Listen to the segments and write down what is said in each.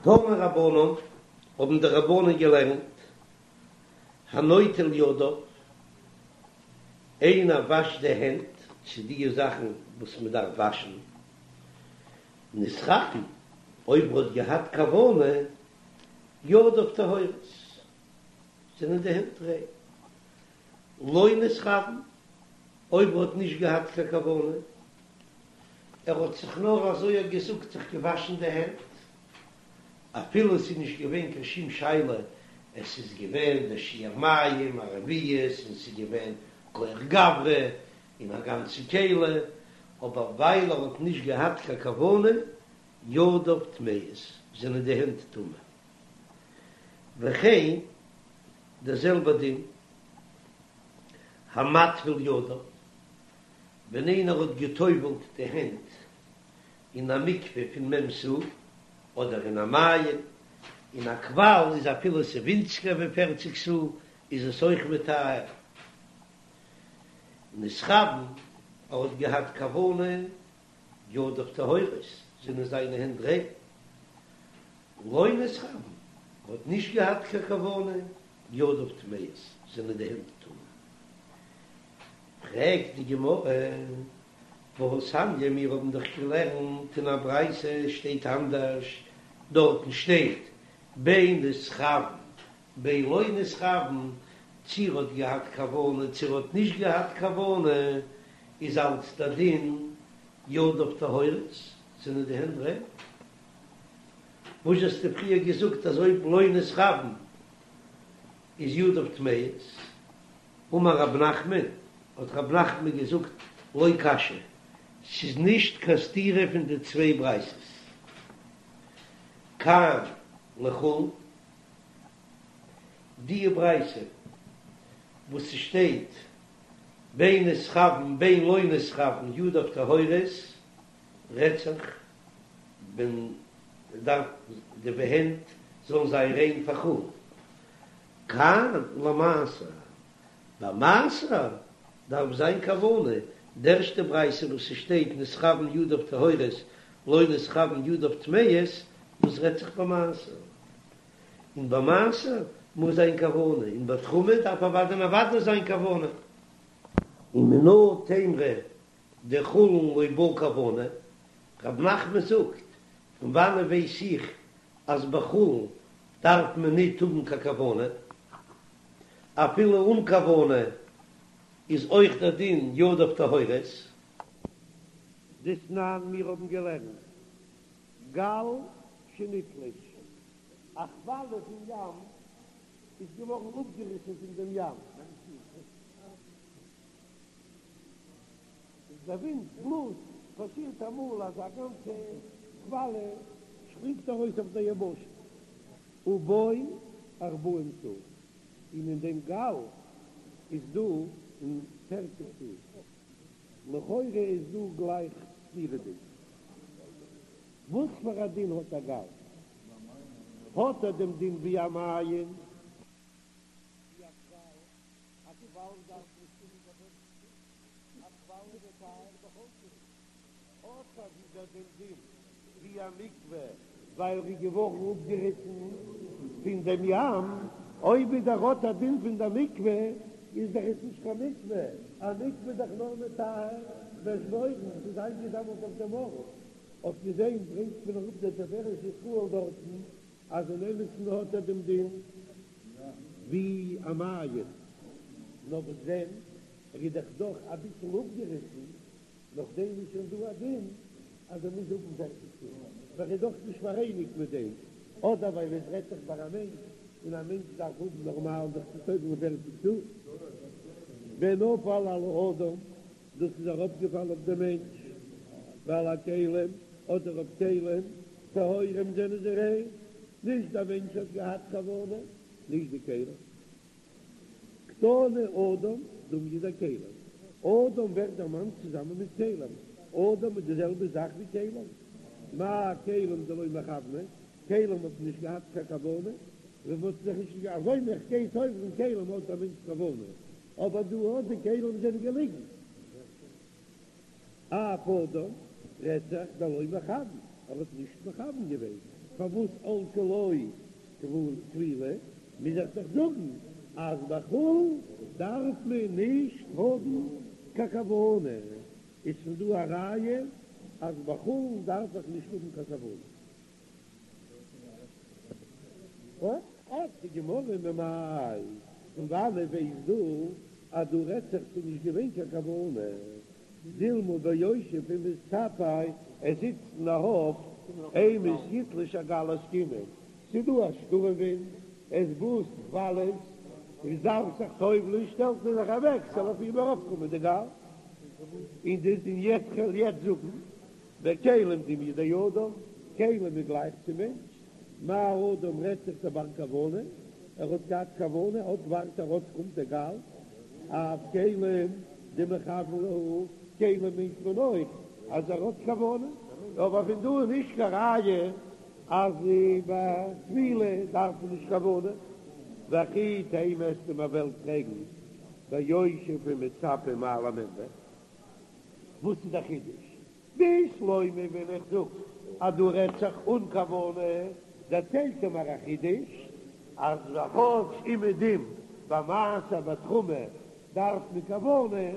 תנו רבנן, האבן די רבנן געלערנט, הנוטל ידיו, איינער וואשט די הענט צו די זאכן וואס מען דארף וואשן, נתכוון, אויב ער האט געהאט כוונה, ידיו טהורות, זענען די הענט ריין. לא נתכוון, אויב ער האט נישט געהאט קיין כוונה, ער האט זיך נאר אזוי געזאגט זיך געוואשן די הענט, אפילו עס איז נישט געווען קיין שום שאלה, עס איז געווען דער שיעור מים, א רביעית, און עס איז געווען כח גברא, און א גאנצע כלי, אבער ווייל ער האט נישט געהאט קיין כוונה, ידיו טמאות, זענען די הענט טמא. וכן, דער זעלבער דין, המטביל ידיו, ווען איינער האט גע'טובל'ט די הענט אין א מקווה פון מ' סאה, אדער אין א מעיין, אין א קוואל איז אפילו ס'איז ווינציגער ווי פערציג סאה איז עס אויך מטהר. נתכוון, ער האט געהאט כוונה, ידיו טהורות, זענען זיינע הענט ריין. לא נתכוון, ער האט נישט געהאט קיין כוונה, ידיו טמאות, זענען די הענט טמא. פרעגט די גמרא, והתניא, מיר האבן דאך געלערנט אין א ברייתא שטייט אנדערש, דארטן שטייט בין נתכוון בין לא נתכוון, צי ער האט געהאט כוונה צי ער האט נישט געהאט כוונה, איז אלץ דער דין ידיו טהורות, זענען די הענט ריין. וואס האסטו פריער געזאגט אז אויב לא נתכוון איז ידיו טמאות? אמר רב נחמן, האט רב נחמן געזאגט, לא קשיא, ס'איז נישט קיין סתירה פון די צוויי ברייתות. כאן לחולין, די ברייתא וואס ס'שטייט בין נתכוון בין לא נתכוון ידיו טהורות, רעדט זיך ווען מ'דארף די הענט זאלן זיין ריין פאר חולין. כאן למעשר, ביי מעשר דארף זיין כוונה, די ערשטע ברייתא וואס ס'שטייט נתכוון ידיו טהורות לא נתכוון ידיו טמאות, דאס רעדט זיך ביי מעשר, און ביי מעשר מוז זיין כוונה, און ביי תרומה דארף אוודאי און אוודאי זיין כוונה. ומנא תימרא דחולין לא בעי כוונה, רב נחמן זאגט, פון וואנען ווייס איך אז ביי חולין דארף מען ניט האבן קיין כוונה, אפילו אן כוונה איז אויך דער דין ידיו טהורות. דתנן, מיר האבן געלערנט גל שנתלש, א כוואליע פון ים איז געווארן אפגעריסן פון דעם ים. איז דער ווינט בלאזט, פאסירט אמאל אז א גאנצע כוואליע שפרינגט ארויס אויף דער יבשה, ובו ארבעים סאה, און אין דעם גל איז דא אין פערציג סאה, לכאורה איז דא גלייך סתירה'דיג, וואס פאר א דין האט א גל? האט ער דעם דין ווי א מעיין? ווי א קוואל? א קוואל דארף נישט האבן קיין פערציג סאה, א קוואל איז מטהר בכל שהוא, האט ער ווידער דעם דין ווי א מקווה ווייל ער איז געווארן אפגעריסן פון דעם ים, אויב ווידער האט א דין פון דער מקווה איז דאך עס נישט קיין מקווה, א מקווה איז דאך נאר מטהר באשבורן, ס'איז איינגעזאמלט אויף דעם ארט, אויף דעם ברענגט מען אראפ דער תפארת ישראל דארטן אז אין אמת'ן האט ער דעם דין ווי א מעיין, נאר וואס דען, ער איז דאך דאך אביסל אפגעריסן, נאכדעם איז שוין דא א דין אז ער מוז האבן פערציג סאה, ווייל ער איז דאך נישט פאראייניגט מיט דעם, אדער ווייל עס רעדט זיך ביי א מענטש, און א מענטש דארף האבן נארמאל זיך צו טובל'ן פערציג סאה. ונפל על האדם, דאס איז אראפגעפאלן אויף דעם מענטש, ועל הכלים, אדער אויף כלים, טהורים זענען זיי ריין, נישט דער מענטש האט געהאט כוונה, נישט די כלים. קתני אדם דומיא דכלים, אדם ווערט דערמאנט צוזאמען מיט כלים, אדם איז די זעלבע זאך ווי כלים, מה כלים דלא מכווני, כלים האט נישט געהאט קיין כוונה, ווען מ'האט זיך נישט אזוי ווי איך גיי טובל'ן כלים האט א מענטש כוונה, אבער דא האט די כלים זענען געליגן. אף אדם רעדט זיך דלא מכוון, ער האט נישט מכוון געווען. פארוואס עלתה לו טבילה, מוז איך דאך זאגן אז ביי חולין דארף מען נישט האבן קיין כוונה, איז פון דא א ראיה אז ביי חולין דארף איך נישט האבן קיין כוונה. פרעגט די גמרא ממאי, פון וואנעט ווייסט דו אז דא רעדט זיך ס'איז נישט געווען קיין כוונה? דילמא ביושב ומצפה, ער זיצט און ער האפט, אימת יתלוש הגל עסקינן, ס'איז דא א שטורעם ווינט, עס בלאזט כוואליעס, און דארף זיך טובל'ען, שטעלט ער זיך אוועק ס'זאל אויף אים ארויפקומען די גל, און די און יעצט כ'וועל יעצט זאגן, וכלים דומיא דאדם, כלים איז גלייך צו מענטש, מה אדם רעדט זיך דבר כוונה, ער האט געהאט כוונה, אט ווארט ער אט קומט דער גל, אף כלים דמכוון להו, כלים מיינט מען אויך אז ער האט כוונה, אבער פון דא איז נישט קיין ראיה אז ביי טבילה דארף מען נישט כוונה, וכי תימא וועסטו מיר וועלן פרעגן ביושב ומצפה מאי למימרא, וואס איז דער חידוש? בשלמא ווען איך זאג אז דא רעדט זיך אן כוונה, דערציילט ער מיר א חידוש, אז כאטש אומעדום ביי מעשר ותרומה דארף מען כוונה,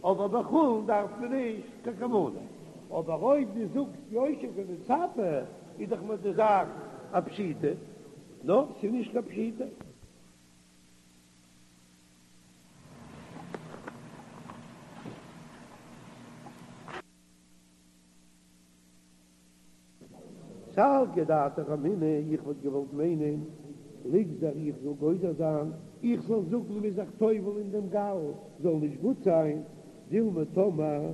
אבער ביי חולין דארף מען נישט קיין כוונה. אבער אויב דו זאגסט יושב ומצפה איז דאך מיר די זאך א פשיטא, נאר ס'איז נישט קיין פשיטא. סלקא דעתך אמינא, איך וואלט געוואלט מיינען, ליגזור איך זאל גוזר זיין, איך זאל זאגן מ'איז זיך טובל אין דעם גל זאל נישט גוט זיין, דילמא טאמער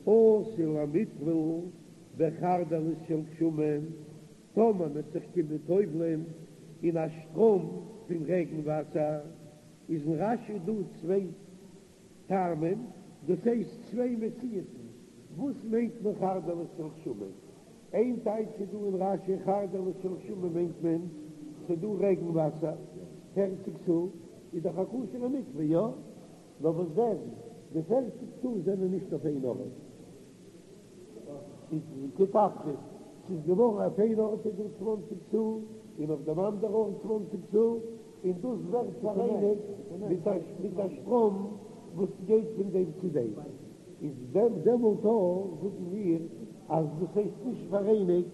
אתי למיטבל בחרדלית של גשמים, טאמער מ'וועט זיך קומען טובל'ען אין א שטראם פון רעגן וואסער, איז אין רש"י דא צוויי טעמים, דאס הייסט צוויי מציאות'ן, וואס מיינט מען חרדלית של גשמים? איין טייטש איז דא אין רש"י חרדלית של גשמים מיינט מען ס'איז דא רעגן וואסער, פערציג סאה איז דאך א כשר'ע מקווה, יא? נאר וואס דען, די פערציג סאה זענען נישט אויף איין ארט. איז קטפרס, ס'איז געווארן אויף איין ארט איז דא צוואנציג סאה, און אויף דעם אנדער ארט צוואנציג סאה, און דאס ווערט פאראייניגט מיט א מיט א שטראם וואס גייט פון דעם צו דעם, איז דעם דעמאלט אויך זאגן מיר אז דאס הייסט נישט פאראייניגט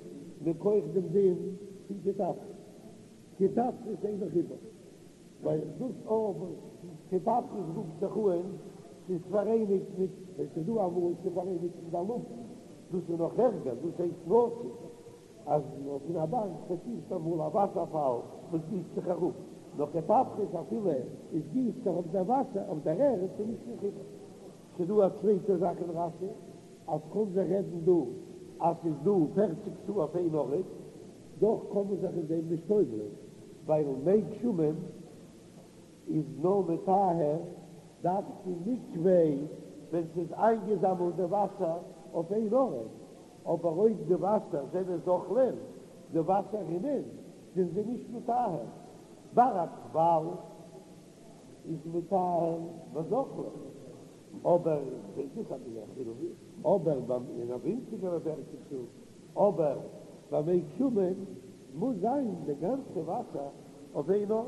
מכח דעם דין פון קטפרס, קטפרס אינו חיבור. ווייל דאס אויב קטפרס רופט זיך אן ס'איז פאראייניגט מיט ווען ס'איז דא אמאל ס'איז פאראייניגט מיט די לופט, דאס איז נאך ערגער, דאס הייסט נתיב, אז פון א בארג פאסירט אמאל א וואסערפאל וואס גיסט זיך אראפ, נאר קטפרס אפילו עס גיסט זיך אויף דער וואסער אויף דער ערד איז נישט קיין חיבור. ס'איז דא א צווייטע זאך אין רש"י אז קען זיך רעדן דא אז ס'איז דא פערציג סאה אויף איין ארט, דאך קען מען זיך אין דעם נישט טובל'ען, ווייל מי גשמים איז נאר מטהר דווקא מקווה ווען ס'איז איינגעזאמלט די וואסער אויף איין ארט, אבער אויב די וואסער זענען זוחלין, די וואסער רינען, זענען זיי נישט מטהר. ביי א קוואל איז מטהר בזוחלין, אבער דאס איז א חילוק, אבער ביי אין א ווינציגערע פערציג סאה, אבער ביי מי גשמים מוז זיין די גאנצע וואסער אויף איין ארט.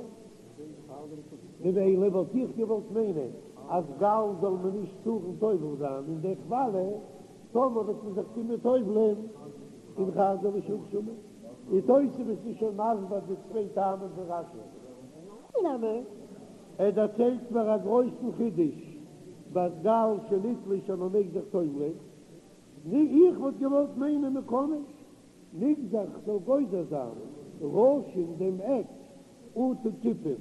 ממילא וואלט איך געוואלט מיינען אז גל זאל מען נישט טארן טובל זיין אין די כוואליע, טאמער וועט מען זיך קומען טובל'ען אין חרדלית של גשמים. די תוספות איז שוין מסביר די צוויי טעמים פון רש"י. נמי, ער דערציילט מיר א גרויסן חידוש ביי גל שנתלש אז מען מעג זיך טובל'ען. נו, איך וואלט געוואלט מיינען מען קען נישט. נגזור כ'זאל גוזר זיין ראשין דעם עק אטו כיפין.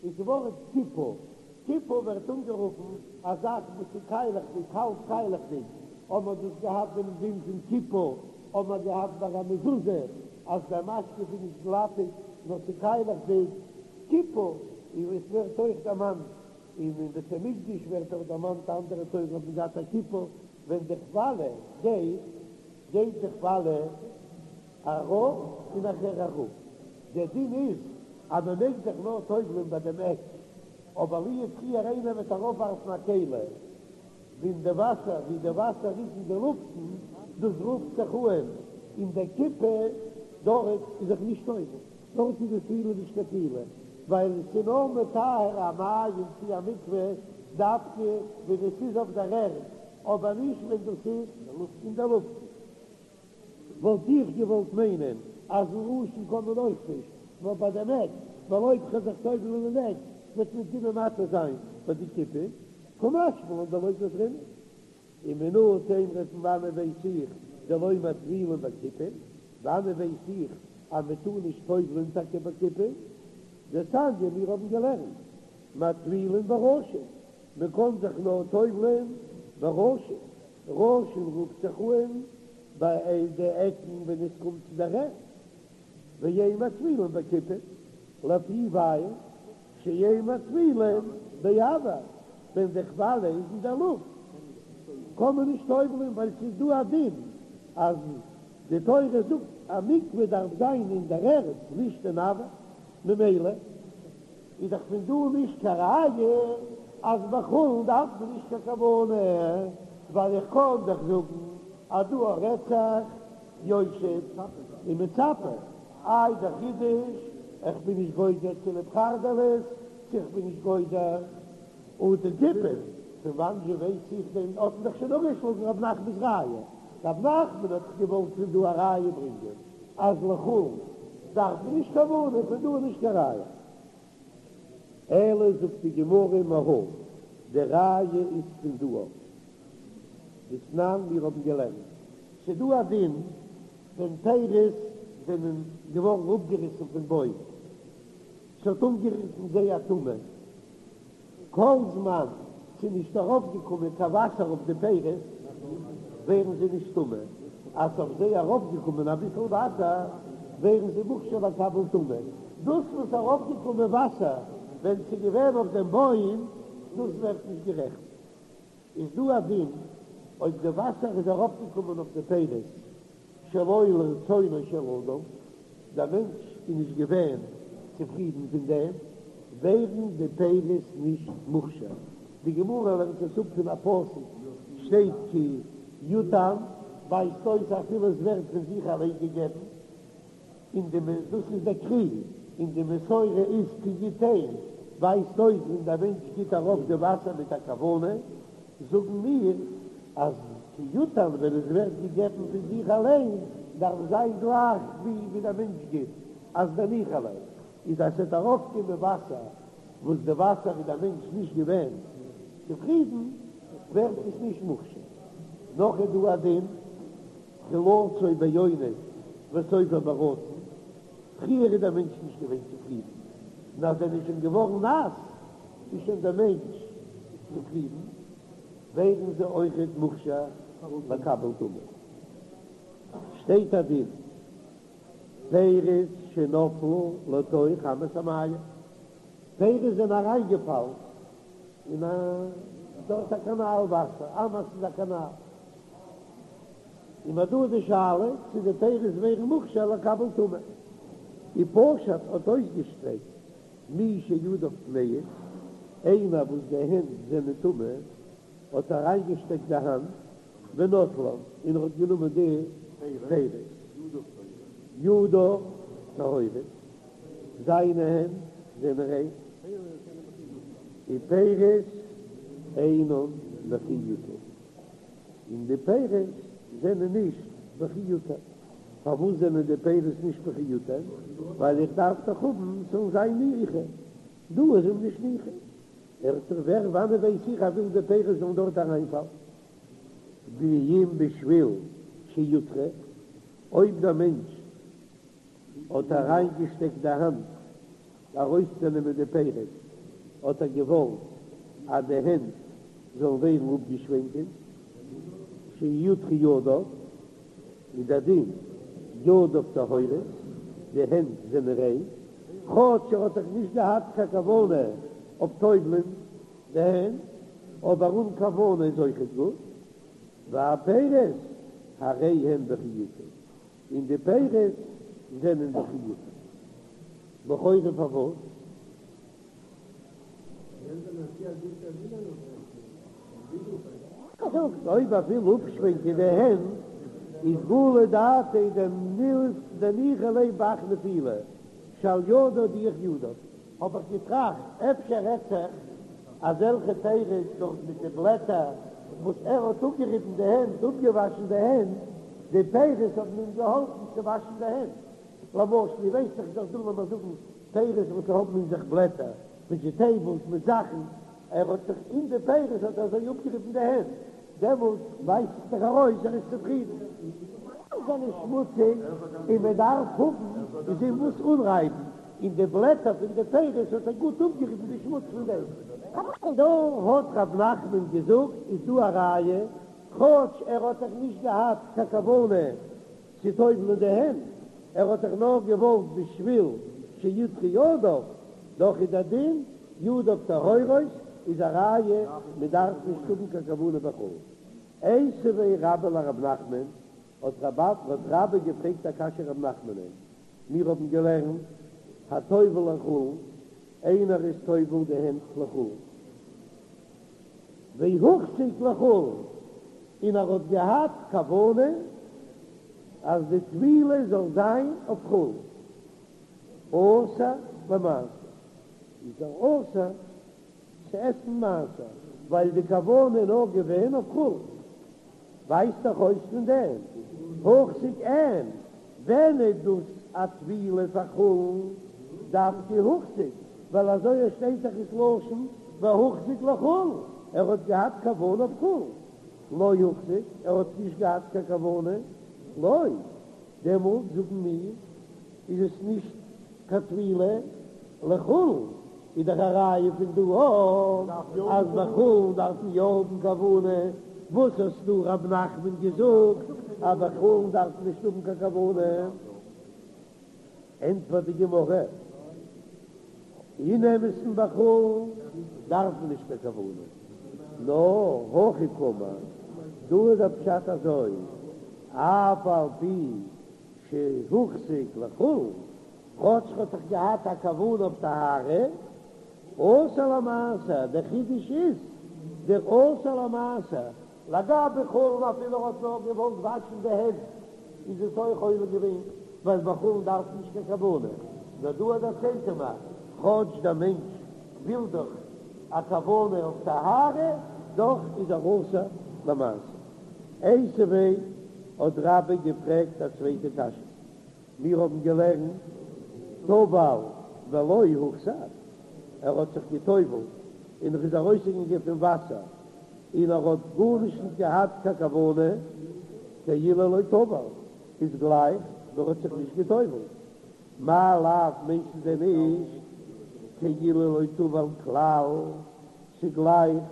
איז ווארט כיפה, כיפה ווערט אנגערופן א זאך וואס איז קיילעכדיג, האלב קיילעכדיג, האבן מיר דאס געהאט דעם דין פון כיפה, האבן מיר געהאט ביי א מזוזה אז דער משקוף איז נישט גלאטיג נאר ס'איז קיילעכדיג, כיפה, און עס ווערט אויך דערמאנט אין אין בית המקדש ווערט אויך דערמאנט אנדערע תורה האט מען געהאט א כיפה ווען די כוואליע גייט גייט די כוואליע ארויף און נאכער אראפ, דער דין איז אז מען מעג זיך נאר טובל'ען ביי דעם עק, אבער לו יצוייר איינער וועט ארויפווארפן א כלי ווי אין די וואסער ווי די וואסער איז אין די לופטן, דאס רופט זיך אן אין די כיפה. דארט איז זיך נישט טובל, דארט איז די טבילה נישט קיין טבילה, ווייל עס איז נאר מטהר א מעיין צי א מקווה דווקא ווען עס איז אויף דער ערד, אבער נישט ווען דאס איז אין דער לופטן. וואלט איך געוואלט מיינען אז אין ראשון קען מען אויך נישט, נאר ביי דעם עק, ווייל אויב כ'וועל זיך טובל'ן אין עק וועט מען טומאה מתיר זיין ביי די כיפין, קא משמע לן דלא גזרינן. ומנא תימרא פון וואנען ווייס איך דלא מטבילין בכיפין? וואנען ווייס איך אז מען טאר נישט טובל'ן טאקע בכיפין? דתניא מיר האבן געלערנט מטבילין בראשין, מען קען זיך נאר טובל'ן בראשין, ראשין רופט זיך אן ביי די עקן ווען עס קומט צו דער ערד, ואין מטבילין בכיפין, לפי ווייל שאין מטבילין באויר, ווען די כוואליע איז אין דער לופט קען מען נישט טובל'ען ווייל ס'איז דא א דין אז די תורה זאגט א מקווה דארף זיין אין דער ערד נישט אין אויר, ממילא איז דאך פון דא נישט קיין ראיה אז ביי חולין דארף מען נישט קיין כוונה, ווייל איך קען דאך זאגן אז דא רעדט זיך יושב ומצפה, איי דער חידוש, איך בין נישט גוזר צוליב חרדלית, צו איך בין נישט גוזר אטו כיפין, פון וואנען ווייס איך דען, האט מען דאך שוין אפגעשלאגן רב נחמנ'ס ראיה, רב נחמן האט דאך געוואלט פון דא א ראיה ברענגען אז לחולין דארף מען נישט כוונה, פון דא איז נישט קיין ראיה. אלא זאגט די גמרא מהא, די ראיה איז פון דא אויף דתנן מיר האבן געלערנט, ס'דא א דין ווען פירות זענען געווארן אפגעריסן פון בוים, ס'האט אנגערירט אין זיי א טומאה, כל זמן ס'איז נישט ארויפגעקומען קיין וואסער אויף די פירות ווערן זיי נישט טמא, אז ס'אויף זיי ארויפגעקומען אביסל וואסער ווערן זיי מוכשר לקבל טומאה, דאס וואס ארויפגעקומען וואסער ווען ס'איז געווען אויף דעם בוים דאס ווערט נישט גערעכנט. איז דא א דין אויב די וואסער איז ארויפגעקומען אויף די פירות שלא לרצונו של אדם, דער מענטש איז נישט געווען צופרידן פון דעם, ווערן די פירות נישט מוכשר. די גמרא לערנט עס אפ פון א פסוק, שטייט כי יותן, ווייזט אויס אפילו עס ווערט פון זיך אליין געגעבן, און די דאס איז דער קרי, און די מסורה איז כי יתן, ווייזט אויס ווען דער מענטש גיט ארויף די וואסער מיט א כוונה, זאגן מיר אז כי יותן ווען עס ווערט געגעבן פון זיך אליין דארף זיין גלייך ווי ווי דער מענטש גיט, אז דניחא ליה איז אז ס'וועט ארויפקומען וואסער וואס די וואסער איז דער מענטש נישט געווען צופרידן ווערט עס נישט מוכשר. נאך איז דא א דין תחילתו באונס וסופו ברצון, פריער איז דער מענטש נישט געווען צופרידן, און אז ער איז שוין געווארן נאס איז שוין דער מענטש צופרידן, ווערן זיי אויכעט מוכשר לקבל טומאה. שטייט א דין, פירות שנפלו לתוך אמת המים, פירות זענען אריינגעפאלן אין א דארט א קאנאל וואסער, אמת איז א קאנאל. און מ'האט דא די שאלה צו די פירות ווערן מוכשר לקבל טומאה. ופשט האט אויסגעשטרעקט מי שידיו טמאות, איינער וואס די הענט זענען טמא האט אריינגעשטעקט די האנט ונטלן און ער האט גענומען די פירות, ידיו טהורות, זיינע הענט זענען ריין, ופירות אינן וכי יותן. און די פירות זענען נישט וכי יותן. פארוואס זענען די פירות נישט וכי יותן? ווייל איך דארף דאך האבן ס'זאל זיין ניחא. דא איז אים נישט ניחא. ער האט זיך ווער וואנעט ווייס איך ער וויל די פירות זאלן דארט אריינפאלן. ואם בשביל שיוטרו, אויב דער מענטש האט אריינגעשטעקט די האנט ארויסצונעמען די פירות, האט ער געוואלט אז די הענט זאלן ווערן אפגעשווענקען, שיוטרו ידיו, איז דער דין ידיו טהורות, די הענט זענען ריין, כאטש ער האט דאך נישט געהאט קיין כוונה אויף טובל'ן די הענט, אבער אן כוונה איז אויכעט גוט, והפירות הרי הם וכי יותן. און די פירות זענען וכי יותן. לכאורה פארוואס? זאגט אויב ער וויל אפשווענקען די הענט. איז גלי דעתיה דניחא ליה בהך נפילה שעל ידה הדיח ידיו, האב איך געטראכט אפשר רעדט זיך אזעלכע פירות דארט מיט די בלעטער וואס ער האט אפגעריבן די הענט, אפגעוואשן די הענט, די פירות האבן אים געהאלפן צו וואשן די הענט, למשל איר ווייסט דאך איז דאך דא לאמיר זאגן פירות וואס האבן אין זיך בלעטער, וועדזשיטעיבלס מיט זאכן, ער האט זיך אין די פירות האט ער אזוי אפגעריבן די הענט, דעמאלט ווייזט זיך דאך ארויס ער איז צופרידן. זיי זענען שמוציג און מען דארף האבן איז אין וואס אנרייבן, און די בלעטער פון די פירות האט ער גוט אפגעריבן די שמוץ פון דעם. דא האט רב נחמן געזאגט איז דא א ראיה, כאטש ער האט דאך נישט געהאט קיין כוונה צו טובל'ן די הענט, ער האט דאך נאר געוואלט בשביל שידחו ידיו, דאך איז דער דין ידיו טהורות איז א ראיה מען דארף נישט האבן קיין כוונה בחולין. איתיביה רבה לרב נחמן, האט רבה געפרעגט א קשיא רב נחמנ'ען, מיר האבן געלערנט הטובל לחולין, איינער איז טובל די הענט לחולין, והוחזק לחולין, און ער האט געהאט כוונה אז די טבילה זאל זיין אויף חולין, אסור למעשר, איז ער אסור צו עסן מעשר, ווייל די כוונה איז נאר געווען אויף חולין. ווייזט דאך אויס פון דעם הוחזק אין, ווען איז דאס א טבילה פאר חולין דווקא הוחזק, ווייל אזוי עס שטייט דאך איז לשון והוחזק לחולין, ער האט געהאט כוונה אויף חולין, לא הוחזק, ער האט נישט געהאט קיין כוונה, לא, דעמאלט זאגן מיר איז עס נישט קיין טבילה לחולין, איז דאך א ראיה פון דא אויך אז ביי חולין דארף מען יא האבן כוונה, וואס האסטו רב נחמן געזאגט אז ביי חולין דארף מען נישט האבן קיין כוונה? ענטפערט די גמרא, אין אמת'ן ביי חולין דארף מען נישט קיין כוונה, נאר הכי קאמר, דא איז דער פשט אזוי, אף על פי שהוחזק לחולין, כאטש ר'האט דאך געהאט א כוונה אויף טהרה, אסור למעשר, דער חידוש איז דער אסור למעשר, לגבי חולין אפילו ער האט נאר געוואלט וואשן די הענט איז עס אויך עולה געווען, ווייל ביי חולין דארף מען נישט קיין כוונה, נאר דא דערציילט ער מיר, כאטש דער מענטש וויל דאך א כוונה אויף טהרה, דאך איז ער אסור למעשר. איתיביה האט רבה געפרעגט א צווייטע קשיא, מיר האבן געלערנט טבל ולא הוחזק, ער האט זיך גע'טובל'ט און ער איז ארויסגעגאנגען פון וואסער און ער האט גארנישט נישט געהאט קיין כוונה, כאילו לא טבל, איז גלייך ווי ער האט זיך נישט גע'טובל'ט, מאי לאו מיינט דען נישט כאילו לא טבל כלל, ס'איז גלייך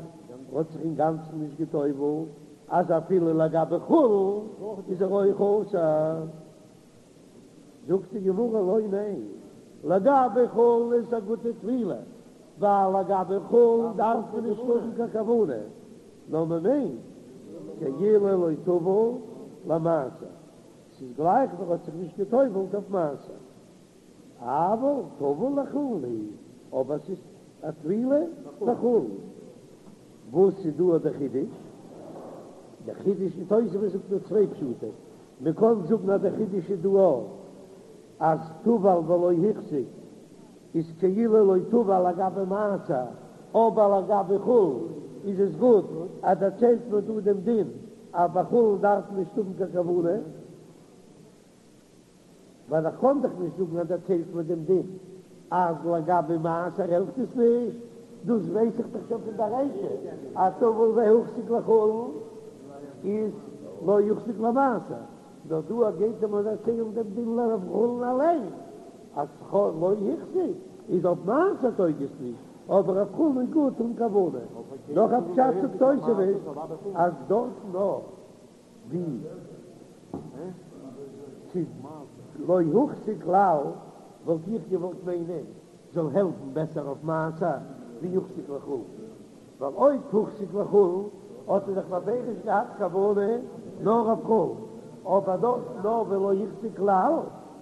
ער האט זיך אינגאנצן נישט גע'טובל'ט, אז אפילו לגבי חולין איז ער אויך אסור. זאגט די גמרא לא ניין, לגבי חולין איז א גוטע טבילה, ווייל לגבי חולין דארף מען נישט האבן קיין כוונה, נאר מען מיינט כאילו לא טבל למעשר, ס'איז גלייך ווי ער האט זיך נישט גע'טובל'ט אויף מעשר. אבל טבול לחולין הוא, אבער ס'איז א טבילה לחולין. וואס איז דא דער חידוש? דער חידוש אין תוספות זאגט דא צוויי פשטים, מען קען זאגן אז דער חידוש איז דא אויך אז טבל ולא החזיק איז כאילו לא טבל לגבי מעשר, אבער לגבי חולין איז עס גוט אז דערציילט מען דא דעם דין אז ביי חולין דארף מען נישט האבן קיין כוונה. ווייל איך קען דאך נישט זאגן אז דערציילט מען דעם דין אז לגבי מעשר העלפט עס נישט, דאס ווייס איך דאך שוין פון די רישא אז טבל והוחזק לחולין איז לא הוחזק למעשר, נאר דא גייט ער מיר דערציילן דעם דין אויף חולין אליין אז לא החזיק איז אויף מעשר טויג עס נישט, אבער אויף חולין איז גוט אן כוונה. נאך א פשט זאגט תוספות אז דארטן נאר. ווי ס'איז לא הוחזק כלל, וואלט איך געוואלט מיינען זאל העלפן בעסער אויף מעשר ווי הוחזק לחולין, ווייל אויב הוחזק לחולין האט ער דאך בפירוש געהאט כוונה נאר אויף חולין, אבער דארט נאר ולא הוחזק כלל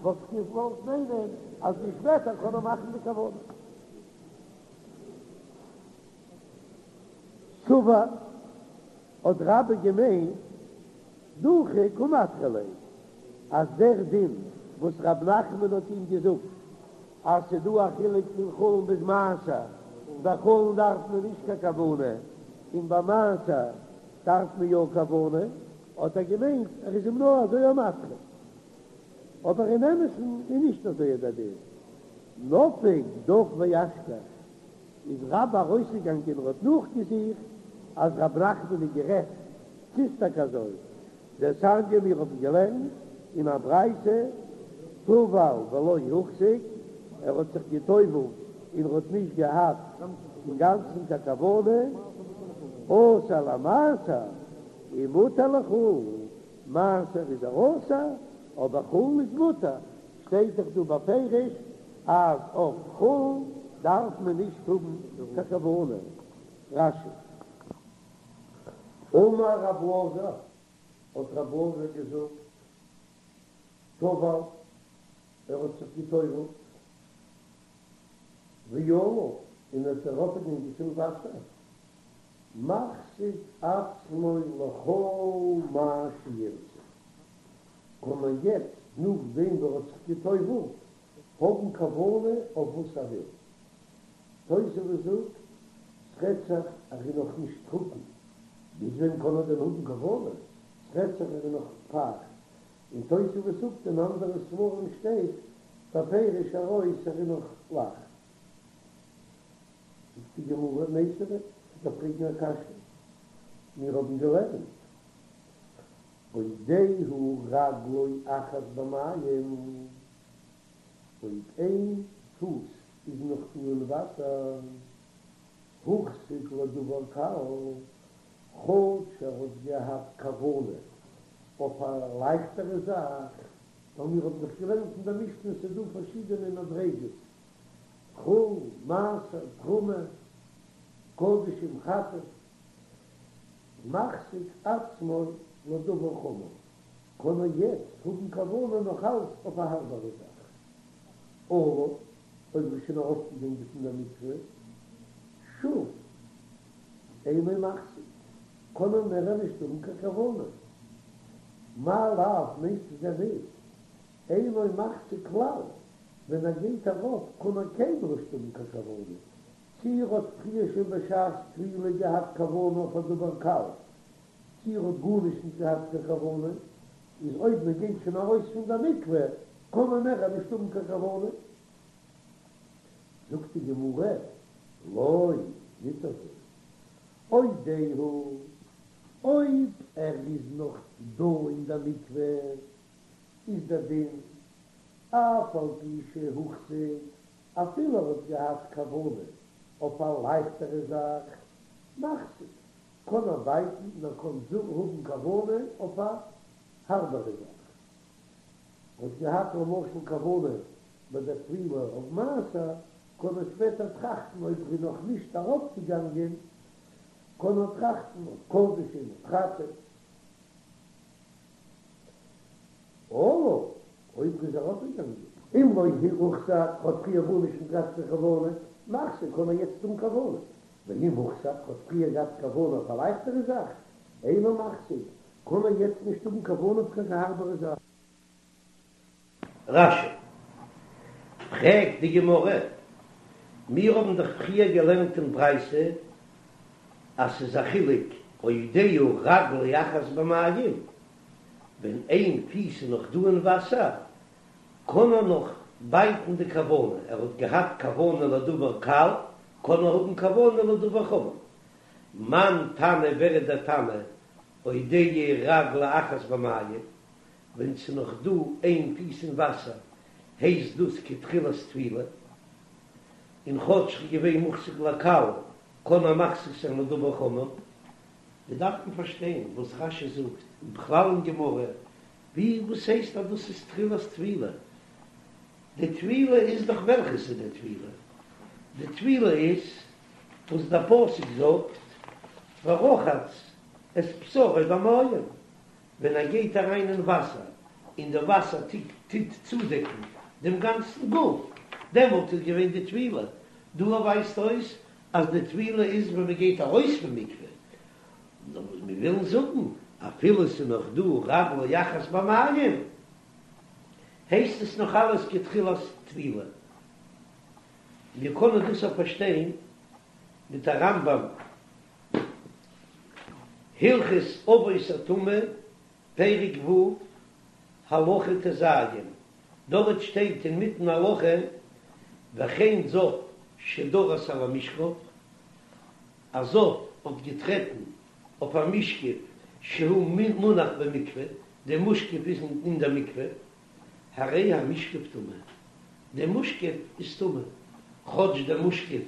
וואלט איך געוואלט מיינען אז ווי שפעטער קען ער מאכן די כוונה. סבר האט רבה געמיינט. דחי קא מדחי ליה, אז דער דין וואס רב נחמן האט אים געזאגט אז ס'דא א חילוק פון חולין ביז מעשר, ביי חולין דארף מען נישט קיין כוונה און ביי מעשר דארף מען יא כוונה, האט ער געמיינט ער איז אים נאר אזוי א מדחה, אבער אין אמת'ן איז נישט אזוי דער דין. נפק דק ואשכח, איז רבה ארויסגעגאנגען און האט נאכגעזוכט אז רב נחמן איז גערעכט, ס'איז טאקע אזוי, דתניא מיר האבן געלערנט אין א ברייתא, טבל ולא הוחזק, ער האט זיך געטובלט און ער האט נישט געהאט אינגאנצן קיין כוונה, אסור למעשר ומותר לחולין, מעשר איז ער אסור, אבער חולין איז מותר, שטייט דאך דא בפירוש אז אויף חולין דארף מען נישט האבן קיין כוונה. רש"י. אמר רב אלעזר, האט רב אלעזר געזאגט, טבל, ער האט זיך געטובלט, ועלה, און ער איז ארויפגעגאנגען צום וואסער, מחזיק עצמו לכל מה שירצה, קען מען יעצט נאכדעם ווי ער האט זיך געטובלט האבן כוונה אויף וואס ער וויל. תוספות זאגט, ס'רעדט זיך אז ער איז נאך נישט טרוקן, ביז ווען קען ער דען האבן כוונה? ס'רעדט זיך ער איז נאך פייכט. און תוספות זאגט אין אנדערע ספרים שטייט בפירוש ארויס ער איז נאך לח. זאגט די גמרא, מיתיבי, כ'דארף פרעגן א קשיא, מיר האבן געלערנט עודהו רגלו אחת במים, אויב איין פוס איז נאך דא אין וואסער, הוחזק לדבר קל, כאטש ער האט געהאט כוונה אויף א לייכטערע זאך, ווייל מיר האבן דאך געלערנט אין דער משנה ס'איז דא פארשידענע מדריגות, חולין, מעשר, תרומה, קדשים, חטאת, מחזיק עצמו לדבר חמור, קען ער יעצט האבן כוונה נאך אלץ אויף א הארבערע זאך. עלה, אויב איז שוין ארויפגעגאנגען פון דער מקווה, שוב אינו מחזיק, קען ער מער נישט האבן קיין כוונה. מאי לאו, מיינסטו דען ניט, אינו מחזיק כלל, ווען ער גייט ארויף קען ער קיינמאל נישט האבן קיין כוונה, צי ער האט פריער שוין בשעת טבילה געהאט כוונה אויף א דבר קל, צי ער האט גארנישט נישט געהאט קיין כוונה, איז אויב מען גייט שוין ארויס פון דער מקווה קען מען מער נישט האבן קיין כוונה. זאגט די גמרא, לא, ניט אזוי, עודהו, אויב ער איז נאך דא אין דער מקווה, איז דער דין, אף על פי שהוחזק, אפילו ער האט געהאט כוונה אויף א לייכטערע זאך, מחזיק, קען ער בייטן און ער קען האבן כוונה אויף א הארבערע זאך. ער האט געהאט למשל כוונה ביי דער טבילה אויף מעשר, קען ער שפעטער טראכטן אויב ער איז נאך נישט ארויפגעגאנגען, קען ער טראכטן אויף קדשים אויף חטאת. עלה, אויב איז ארויפגעגאנגען. אם לא הוחזק, האט פריער גארנישט נישט געהאט קיין כוונה, מחזיק קען ער יעצט האבן כוונה. ואם הוחזק, האט פריער געהאט כוונה אויף א לייכטערע זאך, אינו מחזיק, קען ער יעצט נישט האבן כוונה אויף קיין הארבערע זאך. רש"י, פרעגט די גמרא, מיר האבן דאך פריער געלערנט אין ברייתא אז ס'איז א חילוק עודהו רגלו אחת במים, ווען איין פיס איז נאך דא אין וואסער קען ער נאך בייטן די כוונה, ער האט געהאט כוונה לדבר קל, קען ער האבן כוונה לדבר חמור. מאן תנא ווער איז דער תנא עודהו רגלו אחת במים, ווען ס'איז נאך דא איין פיס אין וואסער הייסט דאס כתחילת טבילה, און כאטש ס'איז געווען מוחזק לקל קען ער מחזיק זיין לדבר חמור. מיר דארפן פארשטיין וואס רש"י זאגט, און בכלל אין גמרא, ווי וואס הייסט אז דאס איז תחילת טבילה? די טבילה איז דאך וועלכעס איז די טבילה? די טבילה איז וואס דער פסוק זאגט ורחץ את בשרו במים, ווען ער גייט אריין אין וואסער און די וואסער טוט צודעקן דעם גאנצן גוף, דעמאלט איז געווען די טבילה. דא ווייזט אויס אז די טבילה איז ווען מען גייט ארויס פון מקווה. נאר וואס מיר ווילן זאגן. אפילו ס'איז נאך דא רגלו אחת במים, הייסט עס נאך אלעס כתחילת טבילה. מיר קענען דאס אויך פארשטיין מיט א רמב"ם, הלכות אבות הטומאה, פרק ו', הלכה ט"ז, דארט שטייט אינמיטן הלכה, וכן זב שדרס על המשכב, א זב האט געטרעטן אויף א משכב שהוא מונח במקווה, די משכב איז אין דער מקווה, הרי המשכב טמא, די משכב איז טמא, כאטש דער משכב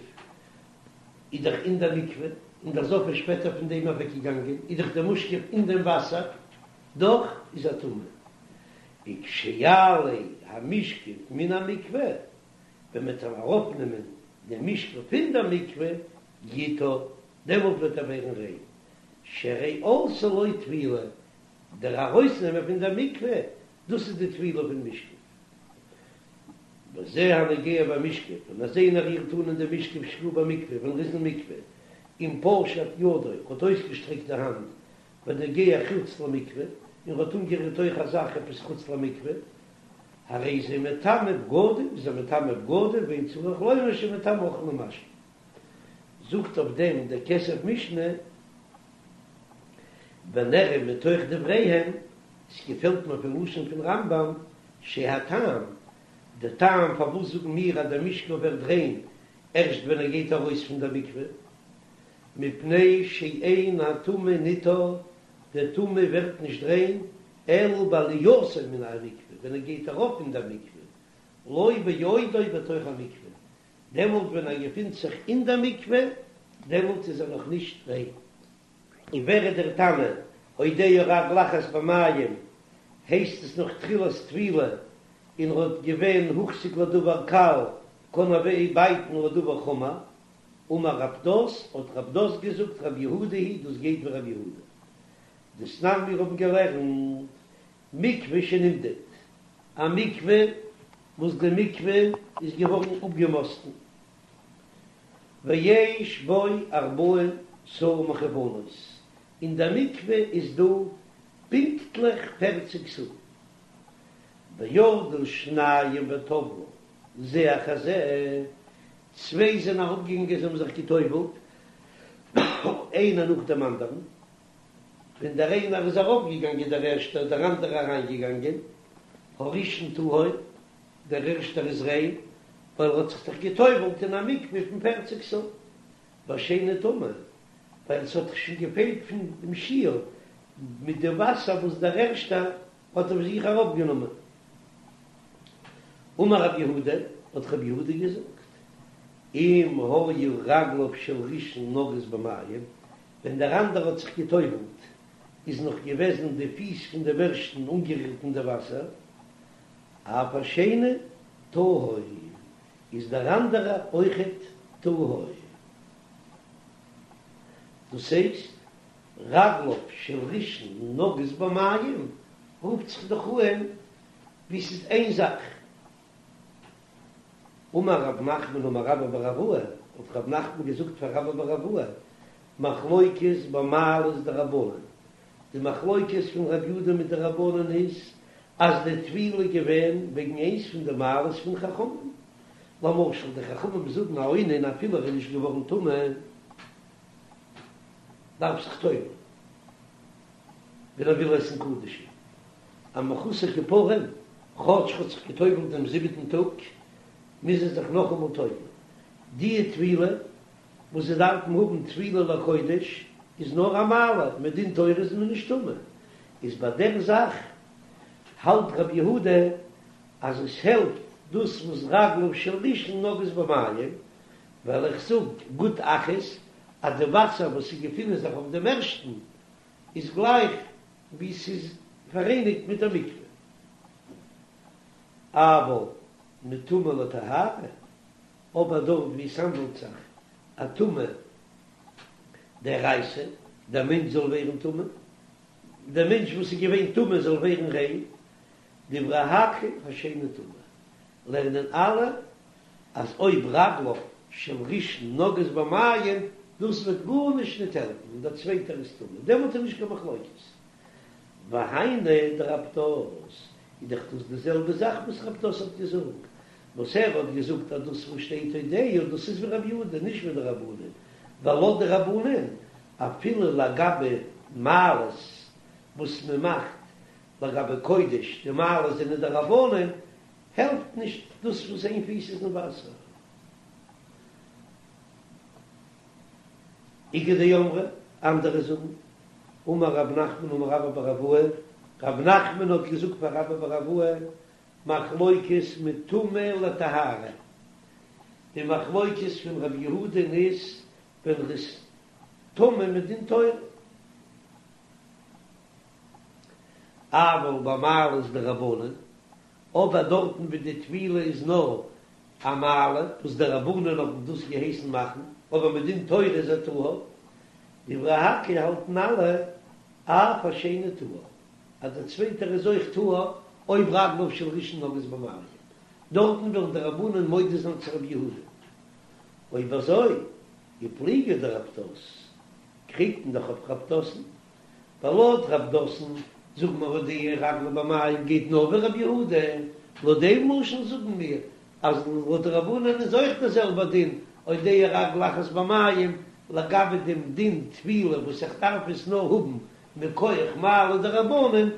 איז דאך אין דער מקווה, און דער זב איז שפעטער פון דעם אוועקגעגאנגען, איז דאך דער משכב אין דעם וואסער, דאך איז ער טמא. וכשיעלה המשכב מן המקווה, ווען מען וועט אראפנעמען דעם משכב פון דער מקווה, יטהר, דעמאלט וועט ער ווערן ריין, שהרי עלתה לו טבילה, דער ארויסנעמען פון דער מקווה, דאס איז די טבילה פון משכב. וזה הנוגע במשכב, און אז איינער רירט אן אין דעם משכב שהוא במקווה, ווען ער איז אין מקווה, אם פשט ידו, האט אויסגעשטרעקט די האנט, ונוגע חוץ למקווה, און האט אנגערירט אויך א זאך עפעס חוץ למקווה, הרי זה מטמא בגדים, איז ער מטמא בגדים, ואין צריך לומר שמטמא אוכל ומשקה. זאגט אויף דעם דער כסף משנה, ונראה מתוך דבריהם, עס געפעלט מיר פון לשון פון רמב"ם, שהטעם, די טעם פארוואס זאגן מיר אז דער משכב ווערט ריין ערשט ווען ער גייט ארויס פון דער מקווה, מפני שאין הטמא נטהר, דער טמא ווערט נישט ריין, אלא בעלייתו מן המקווה, ווען ער גייט ארויף אין דער מקווה, לא בעודו בתוך המקווה, דעמאלט ווען ער געפינט זיך אין דער מקווה, דעמאלט איז ער נאך נישט ריין. און ווער איז דער תנא, עודנה רגל אחת במים, הייסט עס נאך תחילת טבילה, און ער האט געווען הוחזק לדבר קל, קען ער בייטן לדבר חמור, אמר רב פדת, האט רב פדת געזאגט רבי יהודה היא, דאס גייט ווי רבי יהודה. דתנן מיר האבן געלערנט מקווה שנמדד, א מקווה וואס די מקווה איז געווארן אפגעמאסטן, ויש בו ארבעים סאה מכוונות, אין דער מקווה איז דא פונקטליך פערציג סאה, וירדו שניים וטבלו זה אחר זה, צוויי זענען אראפגעגאנגען זיי האבן זיך געטובלט איינער נאך דעם אנדערן, ווען דער איינער איז ארויפגעגאנגען דער ערשטער איז דער אנדערער אריינגעגאנגען, הראשון טהור, דער ערשטער איז ריין, ווייל ער האט זיך דאך גע'טובל'ט אין א מקווה פון פערציג סאה, והשני טמא, ווייל עס האט דאך שוין געפעלט פון דעם שיעור מיט די וואסער וואס דער ערשטער האט אויף זיך ארויפגענומען. אמר רב יהודה, האט רב יהודה געזאגט, אם היו רגליו של ראשון נוגעות במים, ווען דער אנדערע האט זיך גע'טובל'ט איז נאך געוועזן די פיס פון דעם ערשטן אנגערירט אין די וואסער, אף השני טהור, איז דער אנדערע אויכעט טהור. דאס הייסט, רגליו של ראשון נוגעות במים רופט זיך דאך אן ווי ס'איז איין זאך. אמר רב נחמן אמר רבה בר אבוה, האט רב נחמן געזאגט פאר רבה בר אבוה, מחלוקת במעלות דרבנן, די מחלוקת פון רב יודא מיט די רבנן איז אז די טבילה איז געווען וועגן איינס פון די מעלות פון חכמים, למשל די חכמים זאגן א אונן אפילו ער איז נישט געווארן טמא דארף זיך טובל'ן ווען ער וויל עסן קדשים, א מחוסר כיפורים כאטש ער האט זיך געטובל'ט דעם זיבעטן טאג מוז ער זיך נאכאמאל טובל'ן, די טבילה וואס זיי דארפן האבן טבילה לקודש איז נאר א מעלה, מדין תורה איז מען נישט טמא, איז ביי דער זאך האלט רבי יהודה אז עס העלפט דאס וואס רגליו של ראשון נוגעות במים, ווייל איך זאג גוד אחית אז די וואסער וואס ס'געפינען זיך אויף דעם ערשטן איז גלייך ווי ס'איז פאראייניגט מיט דער מקווה, אבל מטומאה לטהרה. אבער דארט ווי עס האנדלט זיך א טומאה דאורייתא, דער מענטש זאל ווערן טמא, דער מענטש וואס איז געווען טמא זאל ווערן ריין, דברי הכל השני טמא, לערנען אלע אז אויב רגליו של ראשון נוגעות במים, דאס וועט גארנישט ניט העלפן און דער צווייטער איז טמא, דעמאלט איז נישט קיין מחלוקת. והיינו דרב פדת, איז דאך דאס די זעלבע זאך וואס רב פדת האט געזאגט, וואס ער האט געזאגט אז דאס וואס שטייט הודהו דאס איז ווי רבי יהודה נישט ווי די רבנן, ווייל לויט די רבנן אפילו לגבי מעלות וואס מען מאכט לגבי קודש, די מעלות זענען דרבנן, העלפט נישט דאס וואס איין פיס איז אין וואסער. איכא דאמרי, אנדערע זאגן, אמר רב נחמן אמר רבה בר אבוה, רב נחמן האט געזאגט פאר רבה בר אבוה, מחלוקת מטומאה לטהרה, די מחלוקת פון רבי יהודה'ן איז ווען ר'איז טמא מדין תורה, אבל במעלות דרבנן, אבער דארטן ווי די טבילה איז נאר א מעלה וואס די רבנן האבן דאס געהייסן מאכן, אבער מדין תורה איז ער טהור, דברי הכל האלטן אלע אף השני טהור, אז דער צווייטער איז אויך טהור אויב רגליו של ראשון נוגעות במים, דארטן וועלן די רבנן מודה זיין צו רבי יהודה. אויב אזוי, ופליגא דרב פדת, קריגט מען דאך אויף רב פדת'ן, ווייל לויט רב פדת'ן זאגן מיר הודיע רגלו במים גייט נאר ווי רבי יהודה, לויט דעם לשון זאגן מיר אז לויט די רבנן איז אויך דער זעלבער דין הודיע רגלו אחת במים לגבי דעם דין טבילה וואס איך דארף עס נאר האבן מכח מעלה דרבנן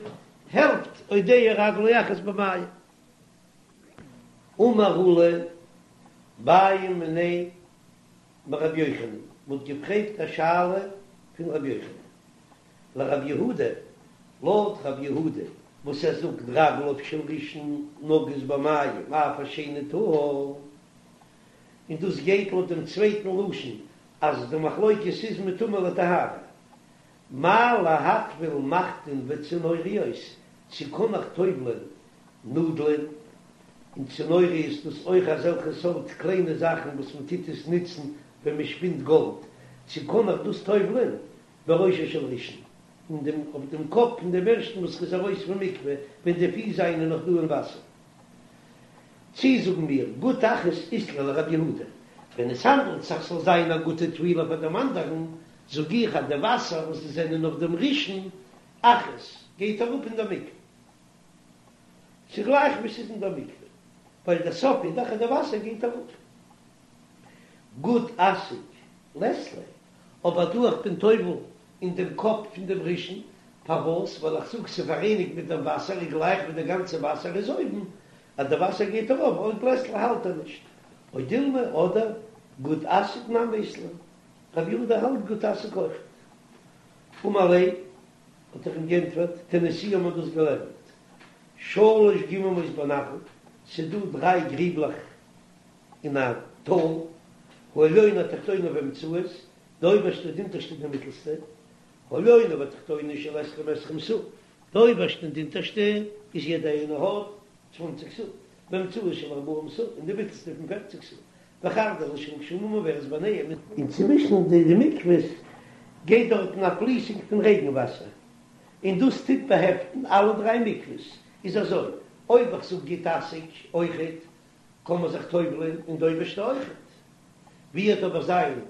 העלפט הודיע רגלו אחת במים. אמר עולא בעו מיניה מרבי יוחנן, מ'האט געפרעגט א שאלה פון רבי יוחנן לרבי יהודה, לויט רבי יהודה וואס ער זאגט רגליו של ראשון נוגעות במים אף השני טהור, און דאס גייט לויט דעם צווייטן לשון אז די מחלוקת איז מטומאה לטהרה, מהו להטביל מחטין וצנוריות, צו קען איך טובל'ען נאדלען און צנוריות דאס אויך אזעלכע סארט קליינע זאכן וואס מען טוט עס נוצן ווען מען שפינט גאלד, צו קען איך דאס טובל'ען בראשו של ראשון, אין דעם אויף דעם קאפ פון דעם ערשטן וואס איז ארויס פון מקווה ווען די פיס זיינען נאך דא אין וואסער. צי זאגן מיר גוד אחית אית ליה לרבי יהודה, ווען עס האנדלט זיך ס'זאל זיין א גוטע טבילה פאר דעם אנדערן, זאג איך אז די וואסער וואס זיי זענען אויף דעם ראשון אחית גייט אראפ אין דער מקווה. ס'איז גלייך ווי ס'איז אין דער מקווה, ווייל דער סוף איז דאך אז די וואסער גייט אראפ. גוד אסיק לית ליה, אבער דא איך בין טובל אין דעם קאפ פון דעם ראשון, פארוואס? ווייל איך זאג ס'איז פאראייניגט מיט דעם וואסער איז גלייך ווי די גאנצע וואסער איז אויבן, אז די וואסער גייט ארויף אויך לית ליה האלט ער נישט. או דילמא אדער גוד אסיק נמי אית ליה, רבי יהודה האלט גוד אסיק אויכעט. אמר ליה האט ער אים גענטפערט, תניתוה האט מען דאס געלערנט שלש גממות בנחל, ס'איז דא דריי גריבלעך אין א טאל, העליונה התחתונה והאמצעית, די אויבערשטע די אונטערשטע די מיטלסטע, העליונה והתחתונה של עשרים עשרים סאה, די אויבערשטע און די אונטערשטע איז יעדע איינע האט צוואנציג סאה, והאמצעית של ארבעים סאה, און די מיטלסטע פון פערציג סאה, וחרדלית של גשמים עוברת ביניהם. און צווישן די מקוואות גייט דארטן א פליסונג פון רעגן וואסער, און דאס טוט באהעפטן אלע דריי מקוואות, איז אזוי, אויב איך זאג גוד אסיק אויכעט, קען מען זיך טובל'ען אין די אויבערשטע אויכעט. ווי וועט אבער זיין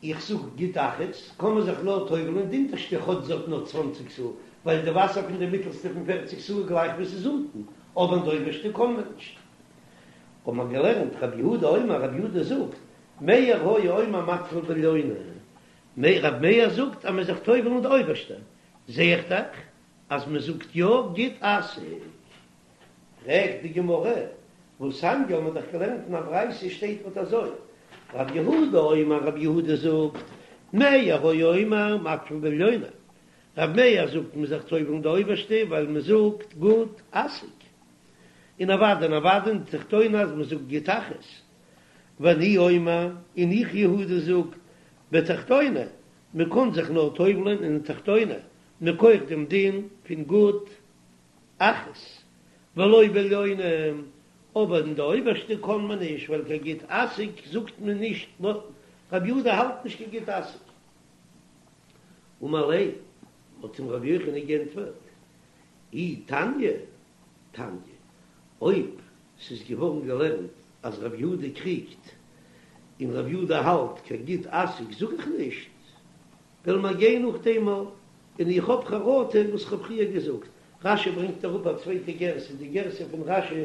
איך זאג גוד אחית, קען מען זיך נאר טובל'ען אין די אונטערשטע כאטש זי האט נאר צוואנציג סאה, ווייל די וואסער פון די מיטעלסטע פון פערציג סאה גלייך ווי ס'איז אונטן, אבער אין די אויבערשטע קען מען נישט. האט מען געלערנט רבי יהודה אומר, רבי יהודה זאגט, מאיר היה אומר מטביל בעליונה, רבי מאיר זאגט אז מען זיך טובל אין די אויבערשטע, זע איך דאך אז מען זאגט יא גוד אסיק. פרעגט די גמרא, והתניא האט מען דאך געלערנט אין א ברייתא שטייט אט אזוי, רבי יהודה אומר, רבי יהודה זאגט, מאיר היה אומר מטביל בעליונה, רבי מאיר זאגט מען זיך טובל אין די אויבערשטע ווייל מען זאגט גוד אסיק. און אוודאי און אוודאי אין תחתונה אז מען זאגט גוד אחית. ואני אומר, און איך יהודה זאג, בתחתונה, מען קען זיך נאר טובל'ען אין תחתונה, מכח דעם דין פון גוד אחית, ולא בעליונה, אבער אין די אויבערשטע קען מען נישט, ווייל קיין גוד אסיק זאגט מען נישט, רבי יהודה האלט נישט קיין גוד אסיק. אמר ליה, האט אים רבי יוחנן גענטפערט, אי תניא, תניא, אויב ס'איז געווארן געלערנט אז רבי יהודה קריגט און רבי יהודה האלט קיין גוד אסיק זאג איך נישט, וועלן מיר גיין נאך דעם. און איך האב חרטה וואס כ'האב פריער געזאגט. רשי ברענגט אראפ א צווייטע גירסא, די גירסא פון רשי.